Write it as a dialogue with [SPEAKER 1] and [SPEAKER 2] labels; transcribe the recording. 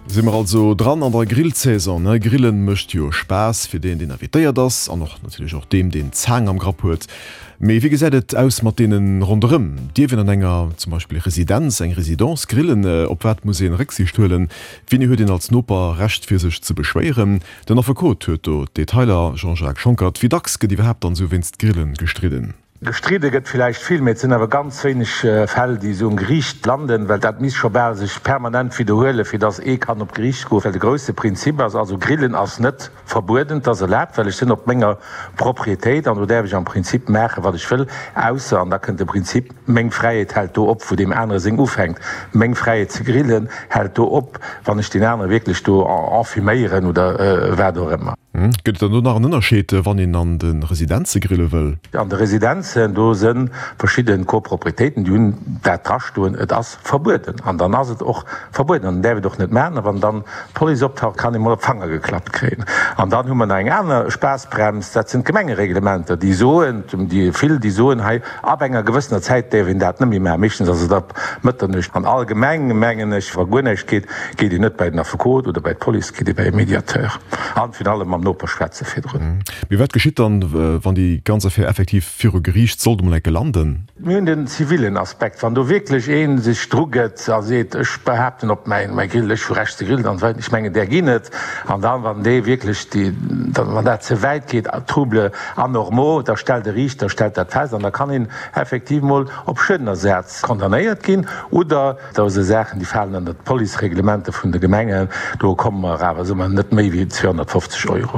[SPEAKER 1] Si mer also dran an der Grillsaison, ne? Grillen mécht jo Spaass fir deen, deen invitéiert ass an och natierlech och deem, deen d'Zaang am Grapp huet. Mee wéi gesäit et aus mat deene ronderëm? Dierf een an enger zum Beispill Residenz, eng Résidence grillen? Op wat muss een Récksiicht huelen? Wéini huet een als Noper Recht fir sech ze beschwéieren? Den Affekot huet do d'Detailer. Jean-Jacques Schonckert, Wéi dacks gëtt iwwerhaapt dann esou wéinst Grillen gestridden?
[SPEAKER 2] Gestridde gëtt villäicht vill, mee et sinn awer ganz wéineg Fäll, déi esou um Geriicht landen, well dat misst scho bal sech permanent widderhuelen, fir datt ee kann op d'Geriicht goen. Well de grousse Prinzip ass also, Grillen ass net verbueden, et ass erlaabt, well ech sinn op menger Propriétéit an do däerf ech am Prinzip maachen, wat ech wëll, ausser, an da kënnt de Prinzip, meng Fräiheet hält do op, wou deem anere seng ufänkt. Meng Fräiheet ze grillen hält do op, wann ech deen anere wierklech do enfuméieren oder wat och ëmmer.
[SPEAKER 1] Gëtt et dann do nach en Ënnerscheed, wann een an de Residenze grille wëll?
[SPEAKER 2] An de Residenzen, do si verschidde Copropriétéiten, déi hunn dat drastoen, et ass verbueden. An dann ass et och verbueden an dann däerf et och net maachen. A wann dann d'Police optaucht, kann ee mol op d'Fanger geklappt kréien. An dann hu mer nach eng aner Spaassbrems, dat sinn d'Gemengereglementer, déi soen, déi vill, déi soen, hei ab enger gewëssener Zäit däerf een dat net méi maachen. Meeschtens ass et ab Mëtternuecht. An allgemeng mengen ech, wa guer näischt geet, geet een net bei den Affekot oder bei d'Police, geet ee bei e Mediateur. An virun allem mam Noper schwätze virdrun.
[SPEAKER 1] Mee wat geschitt dann, wann déi ganz Affär effektiv viru Geriicht sollt emol enke landen?
[SPEAKER 2] Mir hunn den zivilen Aspekt. Wann do wierklech ee sech drugëtt a seet, ech behaapten op mäin Grill, ech hu Recht ze grillen an esou weider, ech mengen där ginn et. An dann, wann dee wierklech déi, wann dat ze wäit geet, Troubles anormaux, da stellt e Riichter stellt dat fest an da kann een effektiv mol op Schuedenersaz condamnéiert ginn oder, Do si Saachen, déi falen ënnert d'Policereglementer vun de Gemengen. Do komme mer awer, soe mer, net méi wéi 250 Euro.